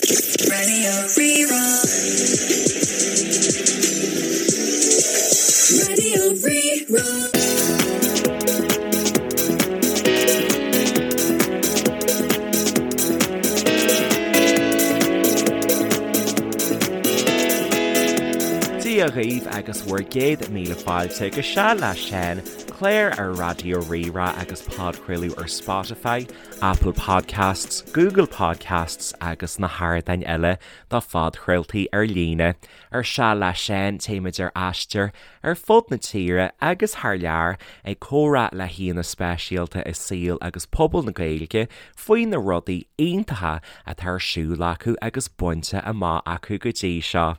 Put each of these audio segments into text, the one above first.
Radio Rí-Rá. Radio Rí-Rá. Dia dhaoibh agus bhur gcéad míle fáilte go Seal le Seán, clár ar Raidió Rí-Rá agus podchraoladh ar Spotify, Apple Podcasts, Google Podcasts agus na hardáin eile do phodchraoltaí ar líne. Ar Seal le Seán, téimid ar aistear ar fud na tíre agus thar lear ag comhrá le haíonna speisialta i saol agus pobal na Gaeilge faoi na rudaí iontacha atá ar siúl acu agus bainte amach acu go dtí seo.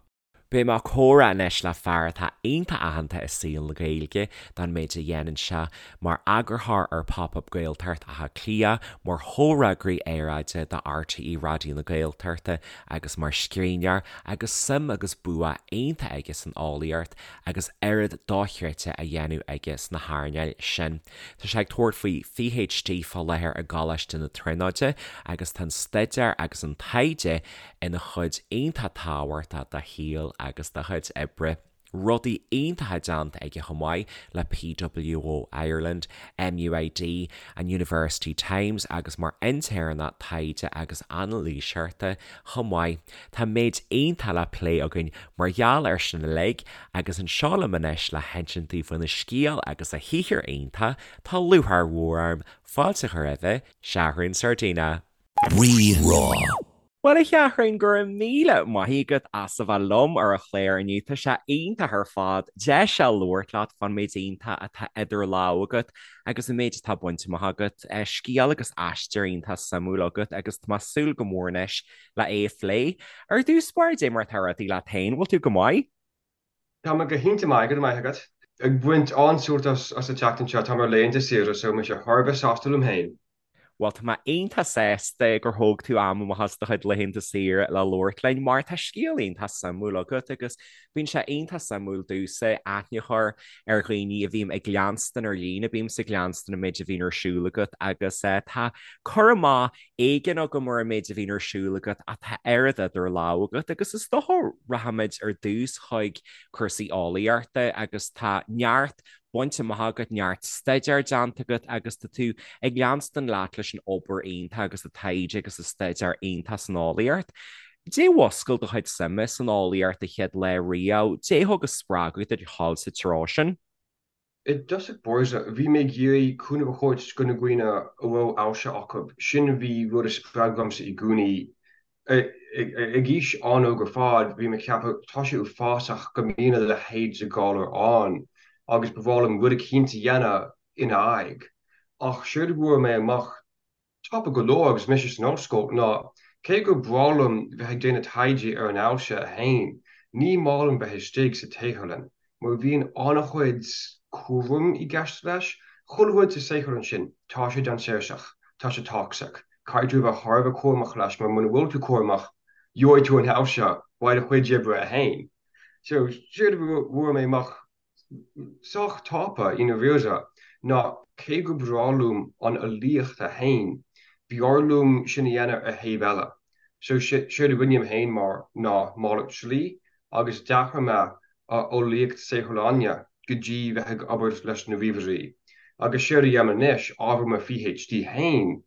Beidh mé ag comhrá anois le fear atá iontach aitheanta i saol na Gaeilge don méid a dhéanann sé mar eagarthóir ar Pop Up Gaeltacht Átha Cliath, mar chomhfhreagraí aeráide do RTÉ Raidió na Gaeltachta agus mar scríbhneoir agus suim agus bua iontach aige san eolaíocht agus oiread dochreidte á dhéanamh aige sna hearnáil sin. Tá sé ag tabhairt faoi PhD fá láthair i gColáiste na Tríonóide agus tá an staidéar agus an taighde ina chuid iontach tábhachtach dá shaol agus dá chuid oibre. Rudaí iontacha déanta aige chomh maith le PWO Ireland, MUID, an University Times agus mar intéirneach taighde agus anailíseoireachta chomh maith. Tá méid iontach le plé againn mar gheall air sin uilig agus anseo liom anois le hinsint daoibh faoina scéal agus a shaothar iontach tá lúcháir mhór orm fáilte a chur roimhe, Seathrún Sardina. Rí-Rá. Bhuel, a Sheathrúin, go raibh míle maith agat as a bheith liom ar an chlár inniu. Tá sé iontach ar fad deis a labhairt leat fán méid iontach atá idir lámha agat agus an méid atá bainte amach agat. Scéal agus aistear iontach suimiúil agat agus tá mé ag súil go mór anois le é a phlé. Ar dtús báire, dé mar atá rudaí leat féin, bhfuil tú go maith? Tá mé go hiontach maith, go raibh maith agat. Ag baint an-sult as an tseachtain seo, táim ar laethanta saoire so mise thar a bheith sásta liom féin. Bhuel, tá mé iontach sásta gur thóg tú am amach as do chuid laethanta saoire le labhairt linn, mar tá scéal iontach suimiúil agat agus bíonn sé iontach suimiúil domhsa aithne a chur ar dhaoine a bhím ag leanstan ar líne, bímse ag leanstan an méid a bhíonn ar siúl agat agus tá cur amach éigin agam ar an méid a bhíonn ar siúl agat ach tá oiread idir lámha agat agus is dócha rachaimid ar dtús chuig cúrsaí eolaíochta agus tá neart bainte amach agat, neart staidéir déanta agat agus tá tú ag leanstan leat leis an obair iontach agus an taighde agus an staidéar iontach san eolaíocht. Dé mhuscail do chuid suime san eolaíocht an chéad lá riamh, dé thug an spreagadh duit a dhul sa treo sin? I dtosach báire, bhí mé ag iarraidh cúnamh a thabhairt go na dhaoine a raibh ailse acu. Sin a bhí rud a spreag dhomsa i gcónaí. Ag aois an-óg ar fad, bhí mé ag ceapadh, tá sé uafásach go mbíonn a leithéid de ghalar ann agus ba bhreá liom rud eicínt a dhéanamh ina aghaidh. Ach séard a bhfuair mé amach tapa go leor agus mise san ollscoil ná cé gur breá liom bheith ag déanamh taighde ar an ailse a fhéin, ní maith liom bheith istigh sa tsaotharlann mar bhíonn an-chuid cúraim i gceist leis. Chuile rud sa saotharlann sin, tá sé dainséarach, tá sé toxic. Caithfidh tú a bheith thar a bheith cúramach leis mar muna bhfuil tú cúramach, gheobhaidh tú an ailse uaidh do chuid oibre a fhéin. So, séard a bhfuair mé amach sách tapa i ndáiríre ná cé gur breá liom an eolaíocht a fhéin, b'fhearr liom sin a dhéanamh ar thaobh eile. So, séard a rinne mé fhéin mar ná malairt slí agus d'athraigh mé ó eolaíocht saotharlainne go dtí bheith ag obair leis na ríomhairí. Agus séard a dhéanaim anois, ábhar mo PhD fhéin,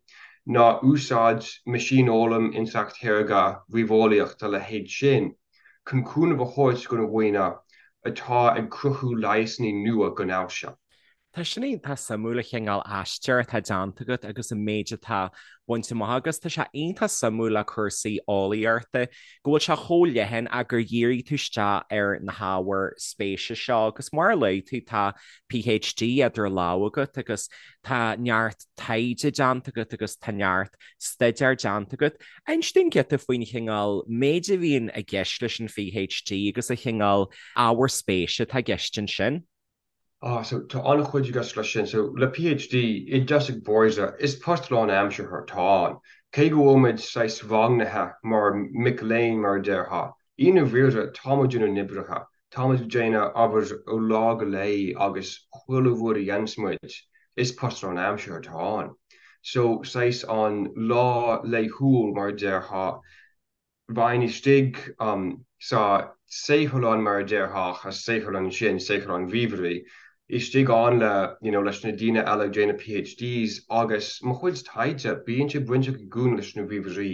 ná úsáid meaisínfhoghlaim, intleacht shaorga, ríomheolaíocht, a leithéid sin, chun cúnamh a thabhairt do na dhaoine atá ag cruthú leigheasanna nua don ailse. Tá sin iontach suimiúil an chineál aistear atá déanta agat agus an méid atá bainte amach agus tá sé iontach suimiúil le cúrsaí eolaíochta go bhfuil sé chomh leathan ach gur dhírigh tú isteach ar na hábhair spéise seo agus mar a luaigh tú tá PhD idir lámha agat agus tá neart taighde déanta agat agus tá neart staidéar déanta agat. Inis dúinn giota faoin chineál méid a bhíonn i gceist leis an PhD agus an chineál ábhar spéise atá i gceist ansin. Ah, so tá an-chuid i gceist leis sin. So le PhD, i dtosach báire, is post lánaimseartha atá ann. Cé go bhfuil muid saghas rangaithe mar mic léinn mar a déarfá, i ndáiríre tá muid inár n-oibrithe. Tá muid ag déanamh obair ó lá go lae agus chuile rud a dhéanas muid, is post lánaimseartha atá ann. So saghas an lá laethúil mar a déarfá. Bheinn istigh sa saotharlann mar a déarfá, a saotharlann sin, saotharlann ríomhairí, istigh ann le, you know, leis na daoine eile ag déanamh PhDs agus mo chuid taighde, bíonn sé bainteach i gcónaí leis na ríomhairí.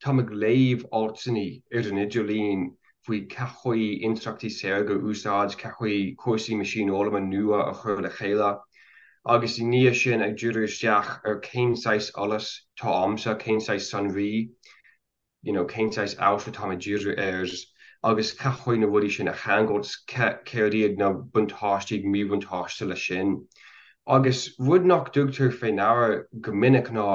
Táim ag léamh altanna ar an idirlíon faoi cén chaoi intleachtaí saorga a úsáid, cén chaoi cúrsaí meaisínfhoghlama nua a chur le chéile agus i ndiaidh sin ag díriú isteach ar cén saghas eolas tá a'msa, cén saghas sonraí you know cén saghas eolais atáim ag díriú air agus cén chaoi na rudaí sin a cheangailt, céard iad na buntáistí agus míbhuntáiste leis sin. Agus rud nach dtugtar fé ndeara go minic ná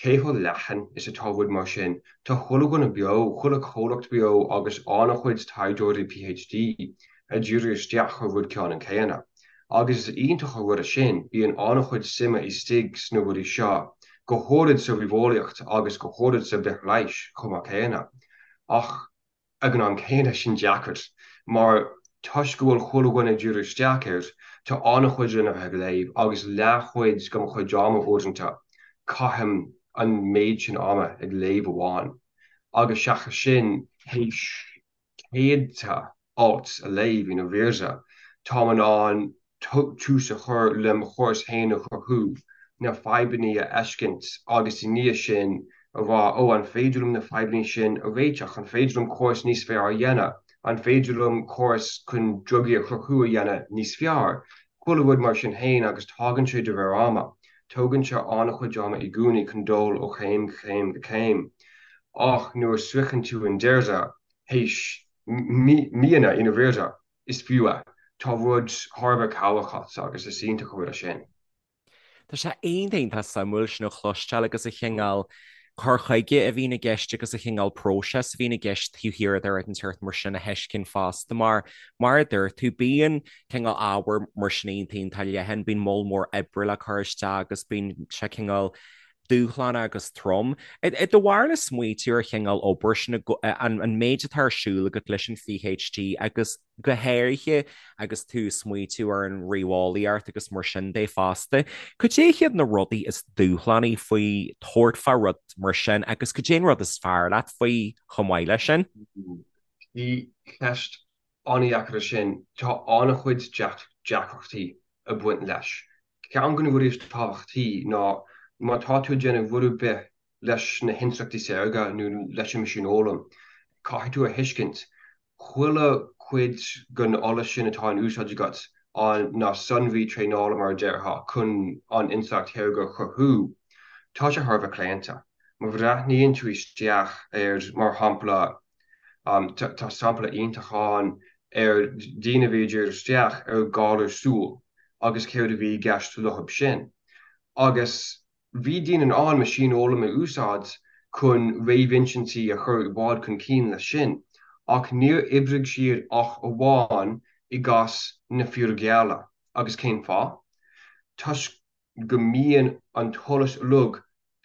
cé chomh leathan is atá rud mar sin. Tá chuile dhuine beo, chuile chomhlacht beo agus an-chuid taighdeoirí PhD ag díriú isteach ar rud ceannann céanna. Agus is iontach an rud é sin, bíonn an-chuid suime istigh sna rudaí seo, go háirid sa ríomheolaíocht agus go háirid sa bhithleighis chomh maith céanna. Ach ag an am céanna, sin deacair, mar toisc go bhfuil chuile dhuine ag díriú isteach air, tá an-chuid lena bheith ag léamh agus leathchuid de mo chuid ama uaireanta, caithim an méid sin ama ag léamh amháin. Agus seachas sin, théis céadta alt a léamh i ndáiríre, táim in ann tús a chur le mo chóras féin a chruthú, na fadhbanna a fheiscint agus i ndiaidh sin a rá 'ó, an féidir liom na fadhbanna sin a réiteach? An féidir liom córas níos fearr a dhéanamh? An féidir liom córas chun drugaí a chruthú a dhéanamh níos fearr? Chuile rud mar sin féin agus tagann sé de réir ama. Tógann sé an-chuid ama i gcónaí chun dul ó chéim go céim go céim. Ach nuair a sroicheann tú an deireadh, théis míonna i ndáiríre, is fiú é. Tá rud thar a bheith cabhrach agat agus is iontach an rud é sin. Tá sé iontach iontach suimiúil sin a chloisteáil agus an cineál cur chuige a bhíonn i gceist agus an cineál próiseas a bhíonn i gceist taobh thiar de rud inteacht mar sin a thuiscint fosta mar, mar a dúirt tú, bíonn cineál ábhar mar sin iontach iontach leathan, bíonn moll mór oibre le cur isteach agus bíonn sé cineál dúshlánach agus trom. I do bharúil smaoitiú ar chineál obair sin, an méid atá ar siúl agat leis an PhD agus go háirithe agus tú ag smaoitiú ar an ríomheolaíocht agus mar sin de fosta. Cad é hiad na rudaí is dúshlánaí faoi tabhairt fá rud mar sin agus cad é an rud is fearr leat faoi chomh maith leis sin? Bhí ceist an-dheacair é sin. Tá an-chuid deacrachtaí ag baint leis. Ceann de na rudaí is tábhachtaí ná má tá tú ag déanamh rud ar bith leis na hintleachtaí saorga nó leis an meaisínfhoghlaim, caithfidh tú a thuiscint chuile chuid den eolas sin atá in úsáid agat, an na sonraí traenála mar a déarfá, chun an intleacht shaorga a chruthú, tá sé thar a bheith claonta. Má bhreathnaíonn tú isteach ar, mar shampla, tá sampla iontach ann ar daoine a bhí ag díriú isteach ar ghalar súl agus céard a bhí i gceist leo sin. Agus Bhí daoine in ann meaisínfhoghlaim a úsáid chun réamhinsintí a chur i bhfad chun cinn leis sin, ach níor oibrigh siad ach amháin i gcás na fir gheala. Agus cén fáth? Toisc go mbíonn an t-eolas uilig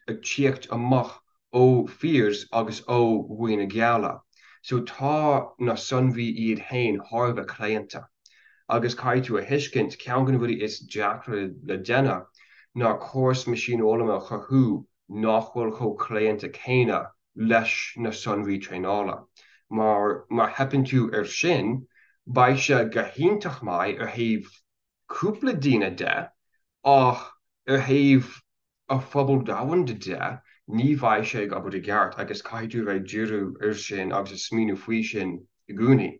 ag tíocht amach ó fir agus ó dhaoine geala. So tá na sonraí iad fhéin thar a bheith claonta. Agus caithfidh tú a thuiscint, ceann de na rudaí is deacra le déanamh ná córas meaisínfhoghlama a chruthú nach bhfuil chomh claonta céanna leis na sonraí traenála. Mar má theipeann tú air sin, beidh sé go hiontach maith ar thaobh cúpla daoine de, ach ar thaobh an phobal domhanda de, ní bheidh sé ag obair i gceart agus caithfidh tú a bheith ag díriú air sin agus ag smaoineamh faoi sin i gcónaí.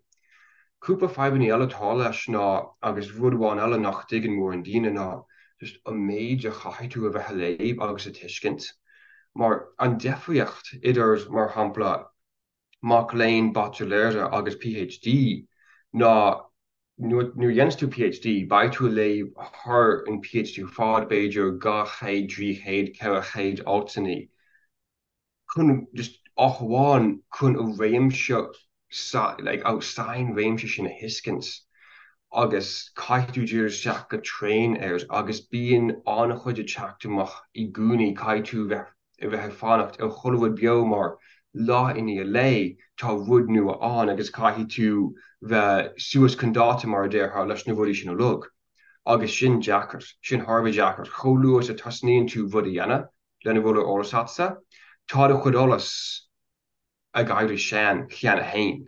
Cúpla fadhbanna eile atá leis ná, agus rud amháin eile nach dtuigeann mórán daoine ná just an méid a chaithfidh tú a bheith a léamh agus a tuiscint. Mar an difríocht idir, mar shampla, mac léinn baitsiléara agus PhD ná nuair a dhéanas tú PhD beidh tú ag léamh thar an PhD ar fad, b'fhéidir 200, 300, 400 altanna chun just ach amháin chun an réimse like an sainréimse sin a thuiscint agus caithfidh tú díriú isteach go tréan air agus bíonn an-chuid ag teacht amach i gcónaí caithfidh tú bheith a bheith ag fanacht ar chuile rud beo mar lá i ndiaidh lae tá rud nua ann agus caithfidh tú bheith suas chun dáta mar a déarfá leis na rudaí sin uilig. Agus sin deacair, sin thar a bheith deacair. Chomh luath is a tosnaíonn tú rud a dhéanamh lena bhfuil ar eolas agatsa, tá do chuid eolas. Ag éirí sean cheana féin.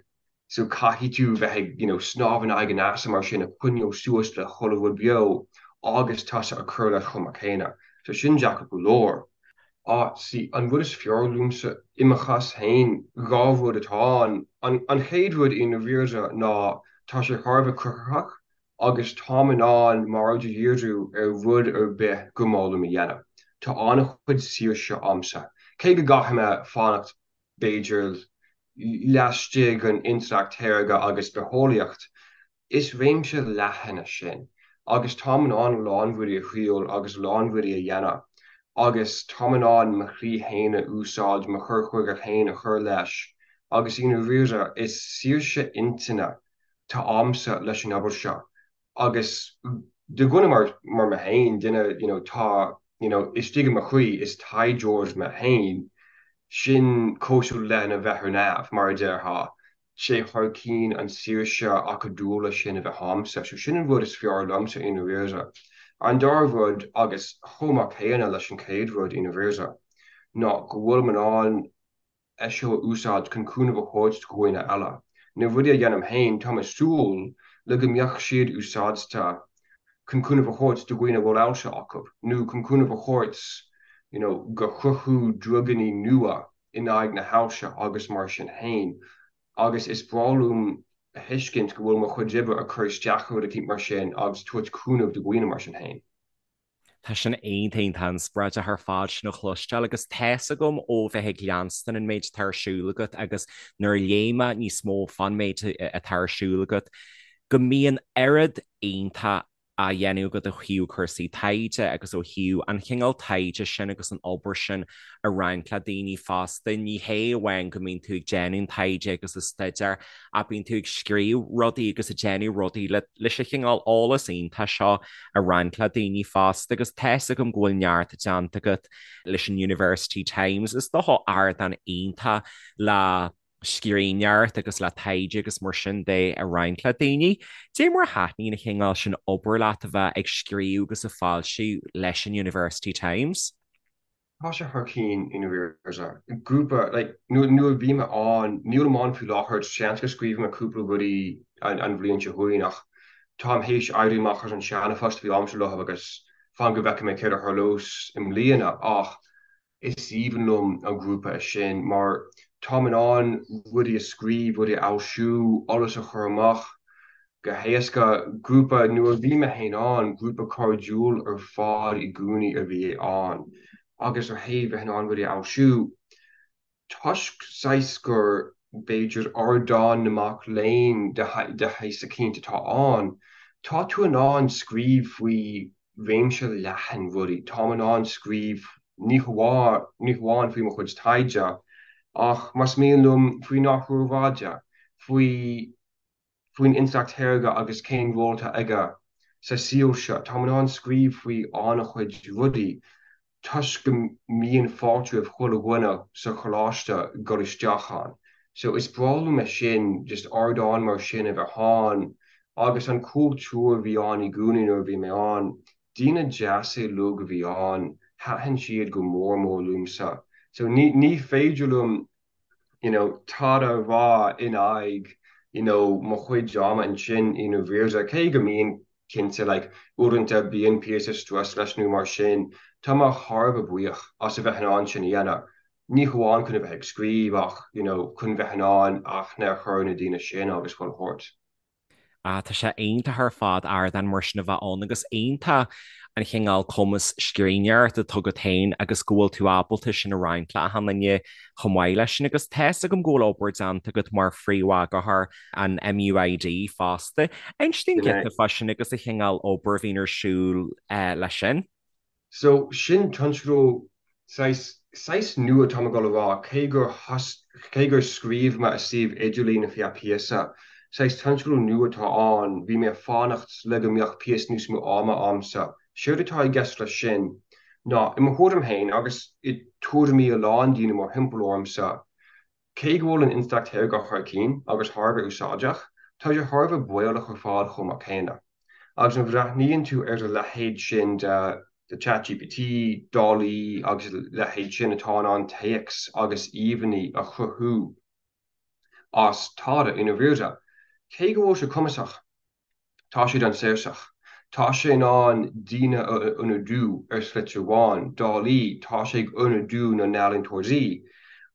So caithfidh tú bheith ag, you know, snámh in aghaidh an easa mar sin, ag coinneáil suas le chuile rud beo agus tusa ag cur leis chomh maith céanna. So sin deacair go leor. Ah, see, an rud is fearr liomsa, i mo chás féin, dhá rud atá ann. An, an chéad rud i ndáiríre ná tá sé thar a bheith cruthaitheach agus táim in ann m'aird a dhíriú ar rud ar bith gur maith liom a dhéanamh. Tá an-chuid saoirse a'msa. Cé go gcaithfidh mé fanacht b'fhéidir, laistigh den intleacht shaorga agus bitheolaíocht, is réimse leathan é sin agus táim in ann a lán rudaí a thriail agus a lán rudaí a dhéanamh agus táim in ann mo shlí féin a úsáid, mo chur chuige féin a chur leis agus i ndáiríre is saoirse intinne atá a'msa leis an obair seo Agus do dhuine mar mar mé féin, duine you know tá you know istigh i mo chroí, is taighdeoir mé féin, sin cosúil lena bheith ar neamh, mar a déarfá. Sé thar cinn an saoirse acadúla sin a bheith a'msa. So sin an rud is fearr liomsa i ndáiríre. An dara rud, agus chomh maith céanna leis an chéad rud i ndáiríre, ná go bhfuilim in ann é seo a úsáid chun cúnamh a thabhairt do dhaoine eile. Na rudaí a dhéanaim féin, táim ag súil le go mbeadh siad úsáidte chun cúnamh a thabhairt do dhaoine a bhfuil ailse acu, nó chun cúnamh a thabhairt you know go chruthú druganna nua in aghaidh na hailse agus mar sin féin. Agus is breá liom a thuiscint go bhfuil mo chuid oibre ag cur isteach ar rud eicínt mar sin agus tabhairt cúnamh do dhaoine mar sin féin. Tá sin iontach iontach inspioráideach ar fad sin a chloisteáil agus tá's agam ó bheith ag leanstan an méid atá ar siúl agat agus nuair a léigh mé níos mó fán méid atá ar siúl agat go mbíonn oiread iontach á dhéanamh agat ó thaobh cúrsaí taighde agus ó thaobh an chineál taighde sin agus an obair sin a roinnt le daoine fosta. Ní hé amháin go mbíonn tú ag déanamh an taighde agus an staidéar ach bíonn tú ag scríobh rudaí agus ag déanamh rudaí leis an chineál eolas iontach seo a roinnt le daoine fosta agus tá's agam go bhfuil neart déanta agat leis an University Times. Is dócha ardán iontach le scríbhneoireacht agus le taighde agus mar sin de a roinnt le daoine. Dé mar a thaitníonn an chineál sin obair leat a bheith ag scríobh agus ag foilsiú leis an University Times? Tá sé thar cinn i ndáiríre. Grúpa, like, nuair a bhí mé ann, nílim ann faoi láthair, seans go scríobhfaidh mé cúpla rudaí an bhliain seo chugainn ach táim théis éirí amach as an seana-phost a bhí a'msa leo agus fan go bhfeicfidh mé céard a tharlós i mbliana ach is aoibhinn liom an grúpa sin mar táim in ann rudaí a scríobh, rudaí a fhoilsiú, eolas a chur amach go héasca. Grúpa, nuair a bhí mé féin ann, grúpa cairdiúil ar fad i gcónaí a bhí ann agus ó thaobh bheith in ann rudaí a fhoilsiú, toisc saghas gur, b'fhéidir, ardán na mac léinn de shaghas eicínt atá ann, tá tú in ann scríobh faoi réimse leathan rudaí. Táim in ann scríobh ní hamháin ní hamháin faoi mo chuid taighde ach, más mian liom, faoin athrú aeráide, faoi. faoin intleacht shaorga agus cén ról atá aige sa saol seo. Táim in ann scríobh faoi an-chuid rudaí toisc go mbíonn fáilte roimh chuile dhuine sa choláiste dul isteach ann. So is breá liom é sin, just ardán mar sin a bheith ann agus an cultúr a bhí ann i gcónaí nuair a bhí mé ann, daoine deasa uilig a bhí ann, thaitin siad go mór mór liomsa. So ní ní féidir liom you know, tada a rá in aghaidh, you know, mo chuid ama ansin i ndáiríre, cé go mbíonn, cinnte, like, uaireanta bíonn píosa strus leis nó mar sin, tá mé thar a bheith buíoch as a bheith in ann sin a dhéanamh, ní hamháin chun a bheith ag scríobh ach, you know, chun bheith in ann aithne a chur ar na daoine sin agus chuile shórt. Ah, tá sé iontach ar fad ardán mar sin a bheith ann agus iontach an chineál cumas scríbhneoireachta atá agat féin agus go bhfuil tú ábalta sin a roinnt le achan duine chomh maith leis sin. Agus tá's agam go bhfuil obair déanta agat mar phríomheagarthóir an MUID fosta. Inis dúinn giota fá sin agus an chineál obair a bhíonn ar siúl leis sin. So, sin tionscadal saghas, saghas nua tá mé ag dul a rá, cé gur cé gur scríobh mé ar suíomh idirlín ar feadh píosa, saghas tionscadal nua atá ann, bhí mé ag fanacht le go mbeadh píosa níos mó ama a'msa. Séard atá i gceist leis sin ná, i mo thuairim féin agus i tuairimí a lán daoine mórthimpeall ormsa, cé go bhfuil an intleacht shaorga thar cinn agus thar a bheith úsáideach, tá sé thar a bheith baolach ar fad chomh maith céanna. Agus má bhreathnaíonn tú ar a leithéid sin de ChatGPT, DALL-E agus a leithéid sin atá in ann téacs agus íomhánna a chruthú. as tada i ndáiríre. Cé go bhfuil sé cumasach, tá sé dainséarach. Tá sé in ann daoine a ionadú ar shlite amháin, dálaí, tá sé ag ionadú na n-ealaíontóirí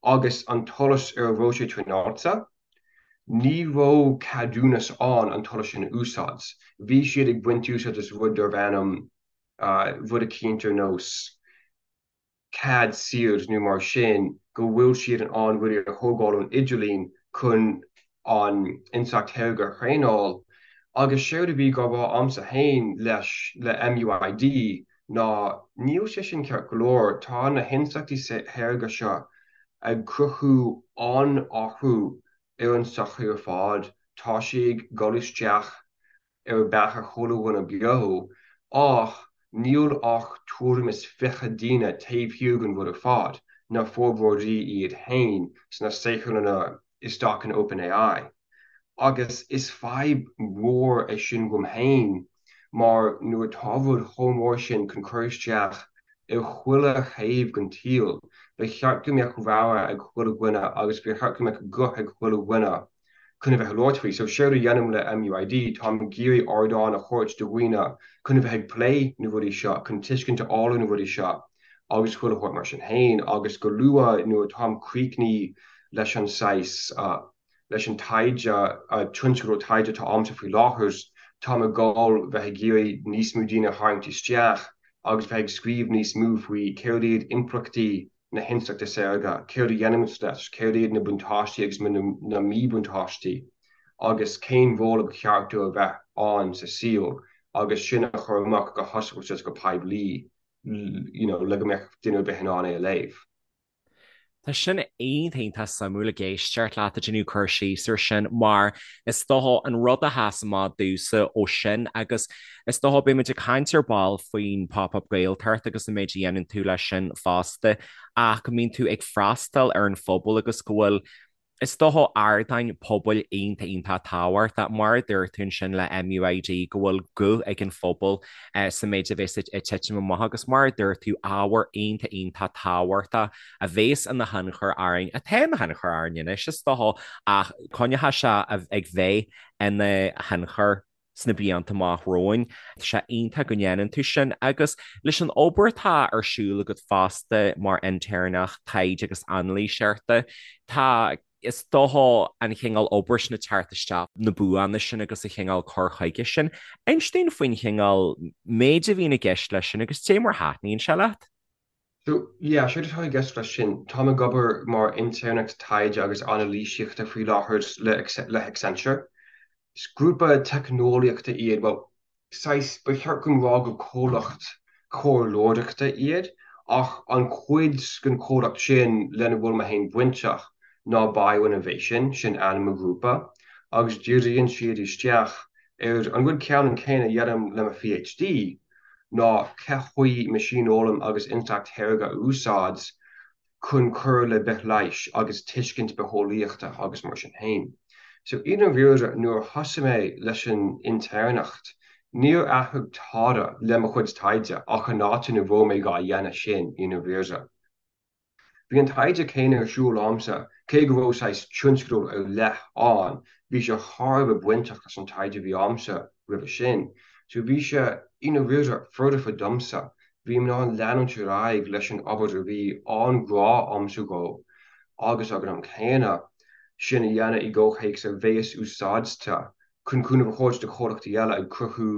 agus an t-eolas ar a bhfuil sé traenáilte, ní raibh ceadúnas ann an t-eolas sin a úsáid. Bhí siad ag baint úsáid as rud darbh ainm rud eicínt ar nós cead saor nó mar sin go bhfuil siad in ann rudaí a thógáil ón idirlíon chun an intleacht shaorga a thraenáil agus séard a bhí á rá a'msa féin leis le MUID ná níl sé sin ceart go leor, tá na hintleachtaí shaorga seo ag cruthú an-athrú ar an tsochaí ar fad, tá sé ag dul isteach ar beatha chuile dhuine beo, ach níl ach tuairim is 20 duine taobh thiar den rud ar fad, na forbróirí iad féin sna saotharlanna isteach in OpenAI. Agus is fadhb mhór é sin dhom féin mar nuair atá rud chomh mór sin chun cur isteach ar chuile thaobh den tsaol, ba cheart go mbeadh rogha ag chuile dhuine agus ba cheart go mbeadh guth ag chuile dhuine chun a bheith ag labhairt faoi. So séard a dhéanaim le MUID, táim ag iarraidh ardán a thabhairt do dhaoine chun a bheith ag plé na rudaí seo, chun tuiscint a fháil ar na rudaí seo agus chuile shórt mar sin féin agus go luath nuair atáim críochnaithe leis an saghas, leis an taighde, tionscadal taighde atá a'msa faoi láthair, táim ag dul bheith ag iarraidh níos mó daoine a tharraingt isteach agus bheith ag scríobh níos mó faoi céard iad impleachtaí na hintleachta saorga, céard a dhéanaimid leis, céard iad na buntáistí agus na míbhuntáistí agus cén ról a ba cheart dó a bheith ann sa saol agus sin a chur amach go hoscailte is go poiblí you know le go mbeadh duine ar bith in ann é a léamh. Tá sin iontach iontach suimiúil ag éisteacht leat ag déanamh cur síos ar sin mar is dócha an rud a sheas amach domhsa ó sin agus Is dócha, beidh muid ag caint ar ball faoin Pop Up Gaeltacht agus an méid a dhéanann tú leis sin fosta, ach go mbíonn tú ag freastal ar an phobal agus go bhfuil, is dócha, ardáin pobail iontach iontach tábhachtach, mar a dúirt tú ansin le MUID, go bhfuil guth ag an phobal sa méid a bhéas ag titim amach agus mar a dúirt tú, ábhar iontach iontach tábhachtach a bhéas ina thionchar orainn, atá ina thionchar orainn anois, is dócha, ach coinneoidh sé ag bheith ina thionchar. sna blianta amach romhainn. Tá sé iontach go ndéanann tú sin agus leis an obair atá ar siúl agat fosta mar intéirneach taighde agus anailíseachta, tá, is dócha, an chineál obair sin ag teacht isteach, na buanna sin agus an chineál cur chuige sin. Inis dúinn faoin chineál méid a bhíonn i gceist leis sin agus cé mar a thaitníonn sé leat. So, yeah, séard atá i gceist leis sin, táim ag obair mar intéirneach taighde agus anailísíochta faoi láthair le le hAccenture. Is grúpa teicneolaíochta iad, bhuel, saghas, ba cheart dom rá gur comhlacht comhairleoireachta iad, ach an chuid den chomhlacht sin lena bhfuil mé féin bainteach ná BioInnovation, sin ainm an ghrúpa, agus díríonn siad isteach ar an rud ceannann céanna a dhéanaim le mo PhD, ná cé chaoi meaisínfhoghlaim agus intleacht shaorga a úsáid chun cur le bithleighis agus tuiscint bitheolaíochta agus mar sin féin. So i ndáiríre nuair a thosaigh mé leis an intéirneacht níor athraigh tada le mo chuid taighde ach an áit ina raibh mé dhá dhéanamh sin i ndáiríre. Bhí an taighde céanna ar siúl a'msa, cé go raibh saghas tionscadal ar leith ann, bhí sé thar a bheith bainteach leis an taighde a bhí a'msa roimhe sin. So bhí sé, i ndáiríre, foirfe domsa. Bhí mé in ann leanúint ar aghaidh leis an obair a bhí an-ghrá a'msa dhó agus ag an am céanna, sin a dhéanamh i gcomhthéacs a bhéas úsáidte chun cúnamh a thabhairt do chomhlachtaí eile ag cruthú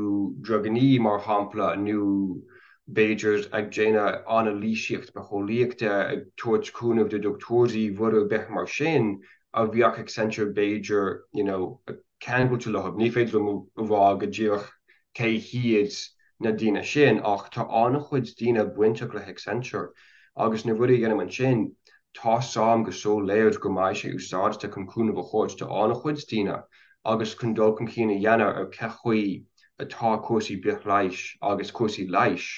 drugannaí, mar shampla, nó b'fhéidir ag déanamh anailísíocht bitheolaíochta, ag tabhairt cúnamh do dhochtúirí, rud ar bith mar sin a bheadh Accenture b'fhéidir you know ceangailte leo. Ní féidir liom a rá go díreach cé hiad na daoine sin ach tá an-chuid daoine bainteach le hAccenture agus na rudaí a dhéanaim ansin, tá's a'm go soiléir go mbeidh sé úsáidte chun cúnamh a thabhairt do an-chuid daoine agus chun dul chun cinn a dhéanamh ar cé chaoi atá cúrsaí bithleighis agus cúrsaí leighis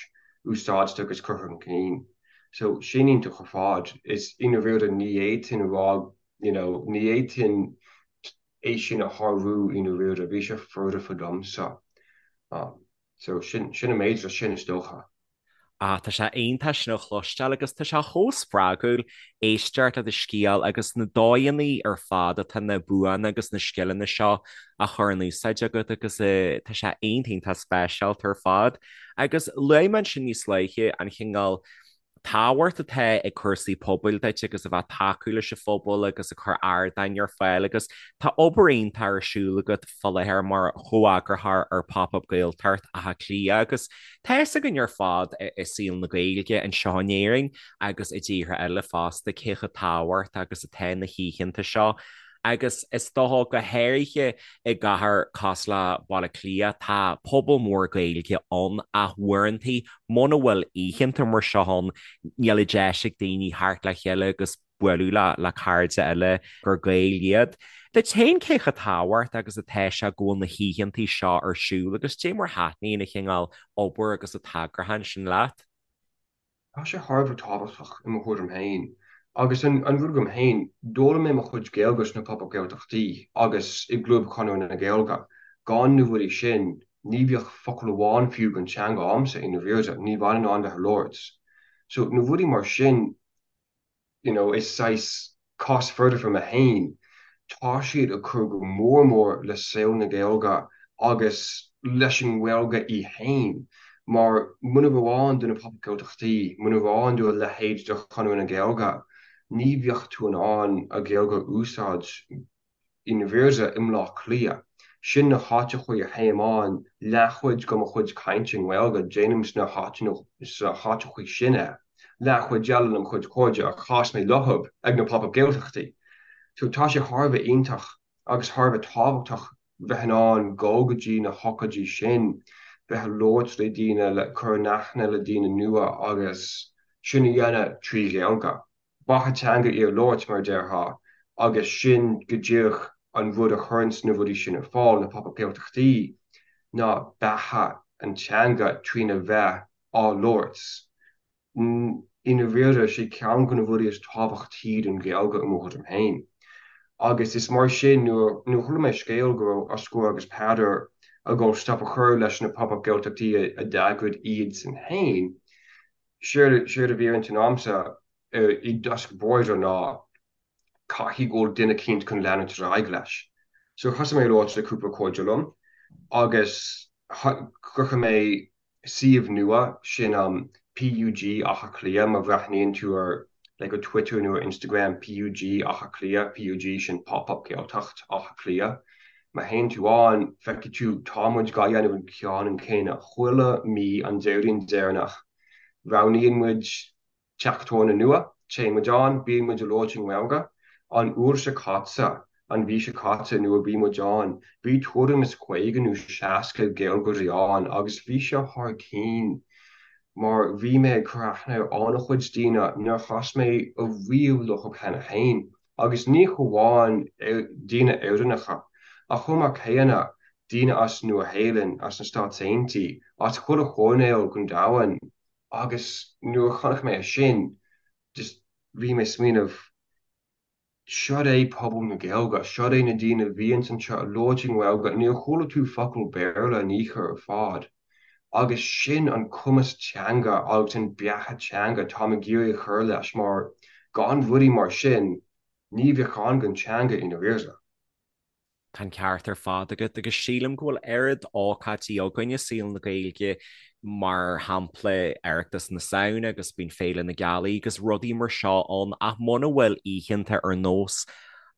úsáidte agus curtha chun cinn. So, sin iontach ar fad. Is i ndáiríre ní fhéadfainn a rá, you know, ní fhéadfainn é sin a shárú i ndáiríre, bhí sé foirfe domsa. So, sin, sin an méid leis sin is dócha. Ah, tá sé iontach sin a chloisteáil agus tá sé chomh spreagúil éisteacht le do scéal agus na dóigheanna ar fad atá na buanna agus na scileanna seo á chur in úsáid agat agus tá sé iontach iontach speisialta ar fad. Agus luaigh mé ansin níos luaithe an chineál tábhacht atá ag cúrsaí pobail duit agus a bheith ag tacú leis an phobal agus ag cur ardáin ar fáil agus tá obair iontach ar siúl agat fá láthair mar chomheagarthóir ar Pop Up Gaeltacht Átha Cliath agus tá fhios againn ar fad i saol na Gaeilge anseo in Éirinn agus i dtíortha eile fosta cé chomh tábhachtach agus atá na hoícheanta seo agus is dócha go háirithe i gcathair cosúil le Baile Átha Cliath tá pobal mór Gaeilge ann ach uaireanta muna bhfuil oícheanta mar seo ann níl an deis ag daoine theacht le chéile agus bualadh le cairde eile gur Gaeil iad. Duit féin cé chomh tábhachtach agus atá sé go bhfuil na hoícheanta seo ar siúl agus cad é mar thaitníonn an chineál obair agus an t-eagrúchán sin leat? Tá sé thar a bheith tábhachtach i mo thuairim féin. Agus an rud agam féin, d'fhoghlaim mé mo chuid Gaeilge sna Pop Up Gaeltachtaí agus i gClub Chonradh na Gaeilge. Gan na rudaí sin, ní bheadh focal amháin fiú den teanga a'msa i ndáiríre, ní bheinn in ann bheith ag labhairt. So, na rudaí mar sin, you know, is saghas cás foirfe mé féin, tá siad ag cur go mór mór le saol na Gaeilge agus leis an nGaeilge í féin, mar muna raibh ann do na Pop Up Gaeltachtaí, muna raibh ann do a leithéid de Chonradh na Gaeilge, ní bheadh tú in ann an Ghaeilge a úsáid i ndáiríre i mBleá Cliath. Sin na háiteachaí a théim ann, leathchuid de mo chuid cainte i nGaeilge, déanaim sna háiteachaí sin é. Leathchuid eile le mo chuid cairde a chas mé leothab ag na Pop Up Gaeltachtaí. So tá sé thar a bheith iontach agus thar a bheith tábhachtach bheith in ann dul go dtí na hócáidí sin, bheith ag labhairt le daoine, le cur in aithne le daoine nua agus sin a dhéanamh trí Ghaeilge. Beatha teanga í a labhairt, mar a déarfá, agus sin go díreach an rud a chuireanns na rudaí sin ar fáil, na Pop Up Gaeltachtaí, ná beatha an teanga trína bheith á labhairt. I ndáiríre, sé ceann de na rudaí is tábhachtaí don Ghaeilge i mo thuairim féin. Agus is mar sin, nuair a chuala mé scéal go raibh Osgur agus Peadar ag dul stop a chur leis na Pop Up Gaeltachtaí a d'eagraigh iadsan féin, Séard a bhí ar intinn a'msa i dtosach báire ná caithfidh go bhfuil duine eicínt chun leanúint ar aghaidh leis. So thosaigh mé ag labhairt le cúpla cairde liom agus chruthaigh mé suíomh nua, sin PUG Átha Cliath, má bhreathnaíonn tú ar like ar Twitter nó ar Instagram PUG Átha Cliath, PUG sin Pop Up Gaeltacht Átha Cliath. Má théann tú ann, feicfidh tú, tá muid dhá dhéanamh an ceann an céanna chuile mí an Déardaoin deireanach. Roghnaíonn muid teach tábhairne nua, téann muid ann, bíonn muid ag labhairt i nGaeilge. An uair seo caite, an mhí seo caite nuair a bhí muid ann, bhí tuairim is 50 nó 60 Gaeilgeoirí ann agus bhí sé thar cinn mar bhí mé ag cur aithne ar an-chuid daoine nár chas mé ariamh leo cheana féin. Agus ní hamháin daoine Éireannacha, ach chomh maith céanna, daoine as Nua-Shéalainn, as na Stáit Aontaithe, as chuile choirnéal den domhan. Agus nuair a chonaic mé é sin, just bhí mé ag smaoineamh, siod é pobal na Gaeilge, siod é na daoine a bhíonns anseo ag labhairt i nGaeilge, níor chuala tú focal Béarla in aon chor ar fad. Agus sin an cumas teanga agus an beatha teanga táim ag iarraidh a chur leis mar gan rudaí mar sin ní bheadh ann don teanga i ndáiríre. Tá an ceart ar fad agat agus sílim go bhfuil oiread ócáidí againn i saol na Gaeilge, mar shampla Oireachtas na Samhna agus bíonn Féile na Gealaí agus rudaí mar seo ann ach muna bhfuil oícheanta ar nós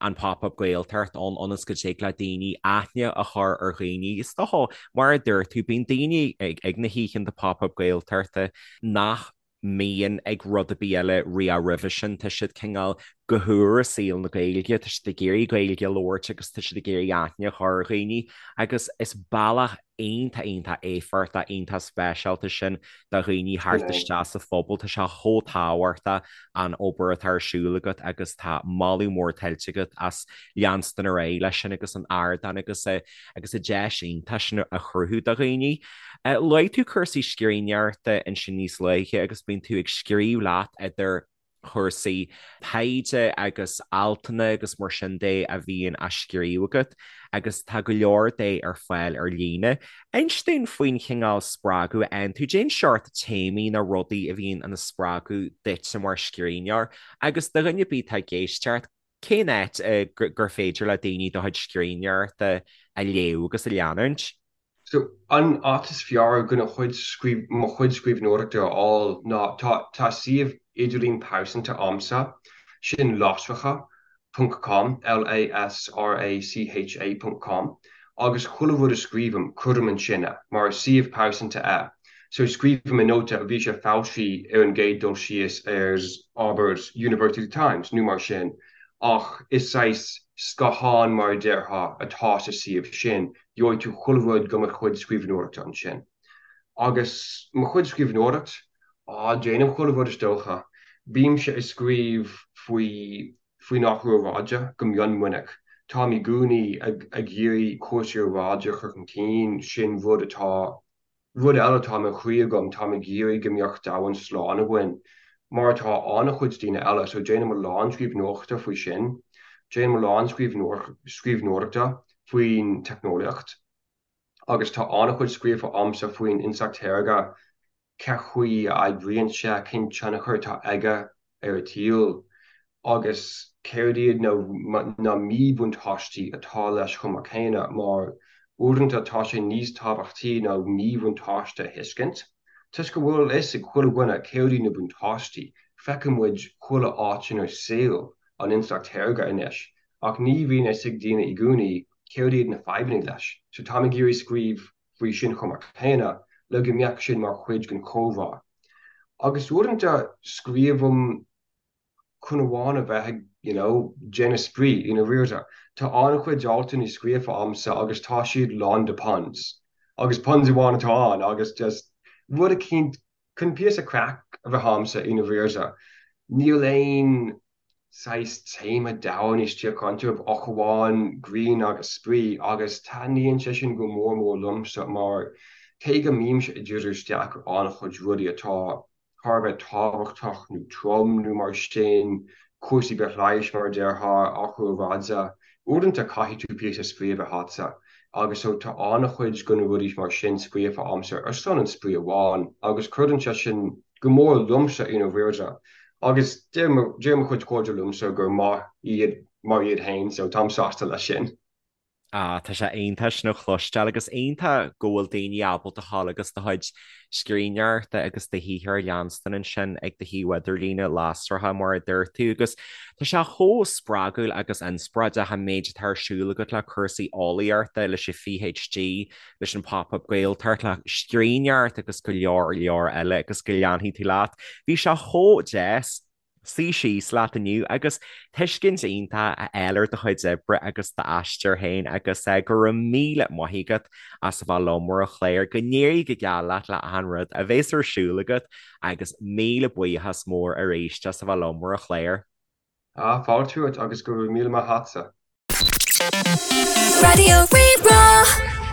an Pop Up Gaeltacht ann ionas go dtig le daoine aithne a chur ar dhaoine. Is dócha, mar a dúirt tú, bíonn daoine ag na hoícheanta Pop Up Gaeltachta nach mbíonn ag rud ar bith eile riamh roimhe sin. Tá siad cineál go húr i saol na Gaeilge, tá siad ag iarraidh Gaeilge a labhairt agus tá siad ag iarraidh aithne a chur ar dhaoine agus is bealach iontach, iontach éifeachtach, iontach speisialta sin do dhaoine theacht isteach sa phobal. Tá sé chomh tábhachtach an obair atá ar siúl agat agus tá moladh mór tuillte agat as leanstan ar aghaidh leis sin agus an ardán agus agus an deis iontach sin a chruthú do dhaoine. Luaigh tú cúrsaí scríbhneoireachta ansin níos luaithe agus bíonn tú ag scríobh leat idir. chúrsaí taighde agus altanna agus mar sin de a bhíonn á scríobh agat agus tá go leor de ar fáil ar líne. Inis dúinn faoin chineál spreagadh a fhaigheann tú, cén seort téamaí nó rudaí a bhíonn ina spreagadh duitse mar scríbhneoir agus do dhuine ar bith atá ag éisteacht, cén áit gur féidir le daoine do chuid scríbhneoireachta a léamh agus a leanúint? So, an áit is fearr chun a chuid, mo chuid scríbhneoireachta a fháil ná, tá, tá suíomh idirlín pearsanta a'msa, sin lasracha ponc com, L-A-S-R-A-C-H-A ponc com, agus chuile rud a scríobhaim, cuirim ansin é, mar is suíomh pearsanta é. So, scríobhaim i nóta, bhí sé foilsithe ar an gcéad dul síos ar, abair, University Times nó mar sin, ach is saghas scáthán mar a déarfá atá sa suíomh sin, Gheobhaidh tú chuile rud go mo chuid scríbhneoireachta ansin. Agus mo chuid scríbhneoireacht? Á, déanaim chuile rud is dócha. Bímse ag scríobh faoi faoin athrú aeráide go mion minic. Táim i gcónaí ag ag iarraidh cúrsaí aeráide a chur chun cinn, sin rud atá Rud eile atá i mo chroí agam, táim ag iarraidh go mbeadh domhan slán againn, mar atá an-chuid daoine eile, so déanaim a lán scríbhneoireachta faoi sin. Déanaim a lán scríbhneoireachta faoin teicneolaíocht agus tá an-chuid scríofa a'msa faoin intleacht shaorga, cén chaoi a oibríonn sé, cén tionchar atá aige ar an tsaol agus céard iad na míbhuntáistí atá leis chomh maith céanna, mar uaireanta tá sé níos tábhachtaí na míbhuntáiste a thuiscint, toisc go bhfuil a fhios ag chuile dhuine céard iad na buntáistí, feiceann muid chuile áit inár saol an intleacht shaorga anois, ach ní bhíonn a fhios ag daoine i gcónaí céard iad na fadhbanna leis, so táim ag iarraidh scríobh faoi sin chomh maith céanna le go mbeadh sin mar chuid den chomhrá. Agus uaireanta scríobhaim chun amháin a bheith ag, you know, déanamh spraoi, i ndáiríre. Tá an-chuid altanna scríofa a'msa agus tá siad lán de puns. Agus puns amháin atá ann agus just rud eicínt chun píosa craic a bheith a'msa i ndáiríre. Níl aon saghas téama domhain istigh iontu ach amháin greann agus spraoi agus taitníonn sé sin go mór mór liomsa mar cé go mbímse ag díriú isteach ar an-chuid rudaí atá thar a bheith tábhachtach nó trom nó mar sin, cúrsaí bithleighis mar a déarfá, athrú aeráide, uaireanta caithfidh tú píosa spraoi a bheith a'dsa agus so tá an-chuid de na rudaí mar sin scríofa a'msa ar son an spraoi amháin agus cuireann sé sin go mór liomsa i ndáiríre agus deir mo chuid cairde liomsa gur maith iad mar iad féin so táim sásta leis sin. Ah, tá sé iontach sin a chloisteáil agus iontach go bhfuil daoine ábalta a ghabháil agus do chuid scríbhneoireachta agus do shaothar a leanstan ansin ag do shuíomh idirlíne lasracha mar a dúirt tú agus tá sé chomh spreagúil agus inspioráideach an méid atá ar siúl agat le cúrsaí eolaíochta, leis an PhD, leis an Pop-Up Gaeltacht, le scríbhneoireacht agus go leor leor eile agus go leanfaidh tú leat. Bhí sé chomh deas suí síos leat inniu agus tuiscint iontach a fháil ar do chuid oibre agus d'aistear féin agus go raibh míle maith agat as a bheith liom ar an chlár, go n-éirí go geal leat le achan rud a bheas ar siúl agat agus míle buíochas mór arís as a bheith liom ar an chlár. Ah, fáilte romhat agus go raibh míle maith a'tsa. Raidió Rí-Rá.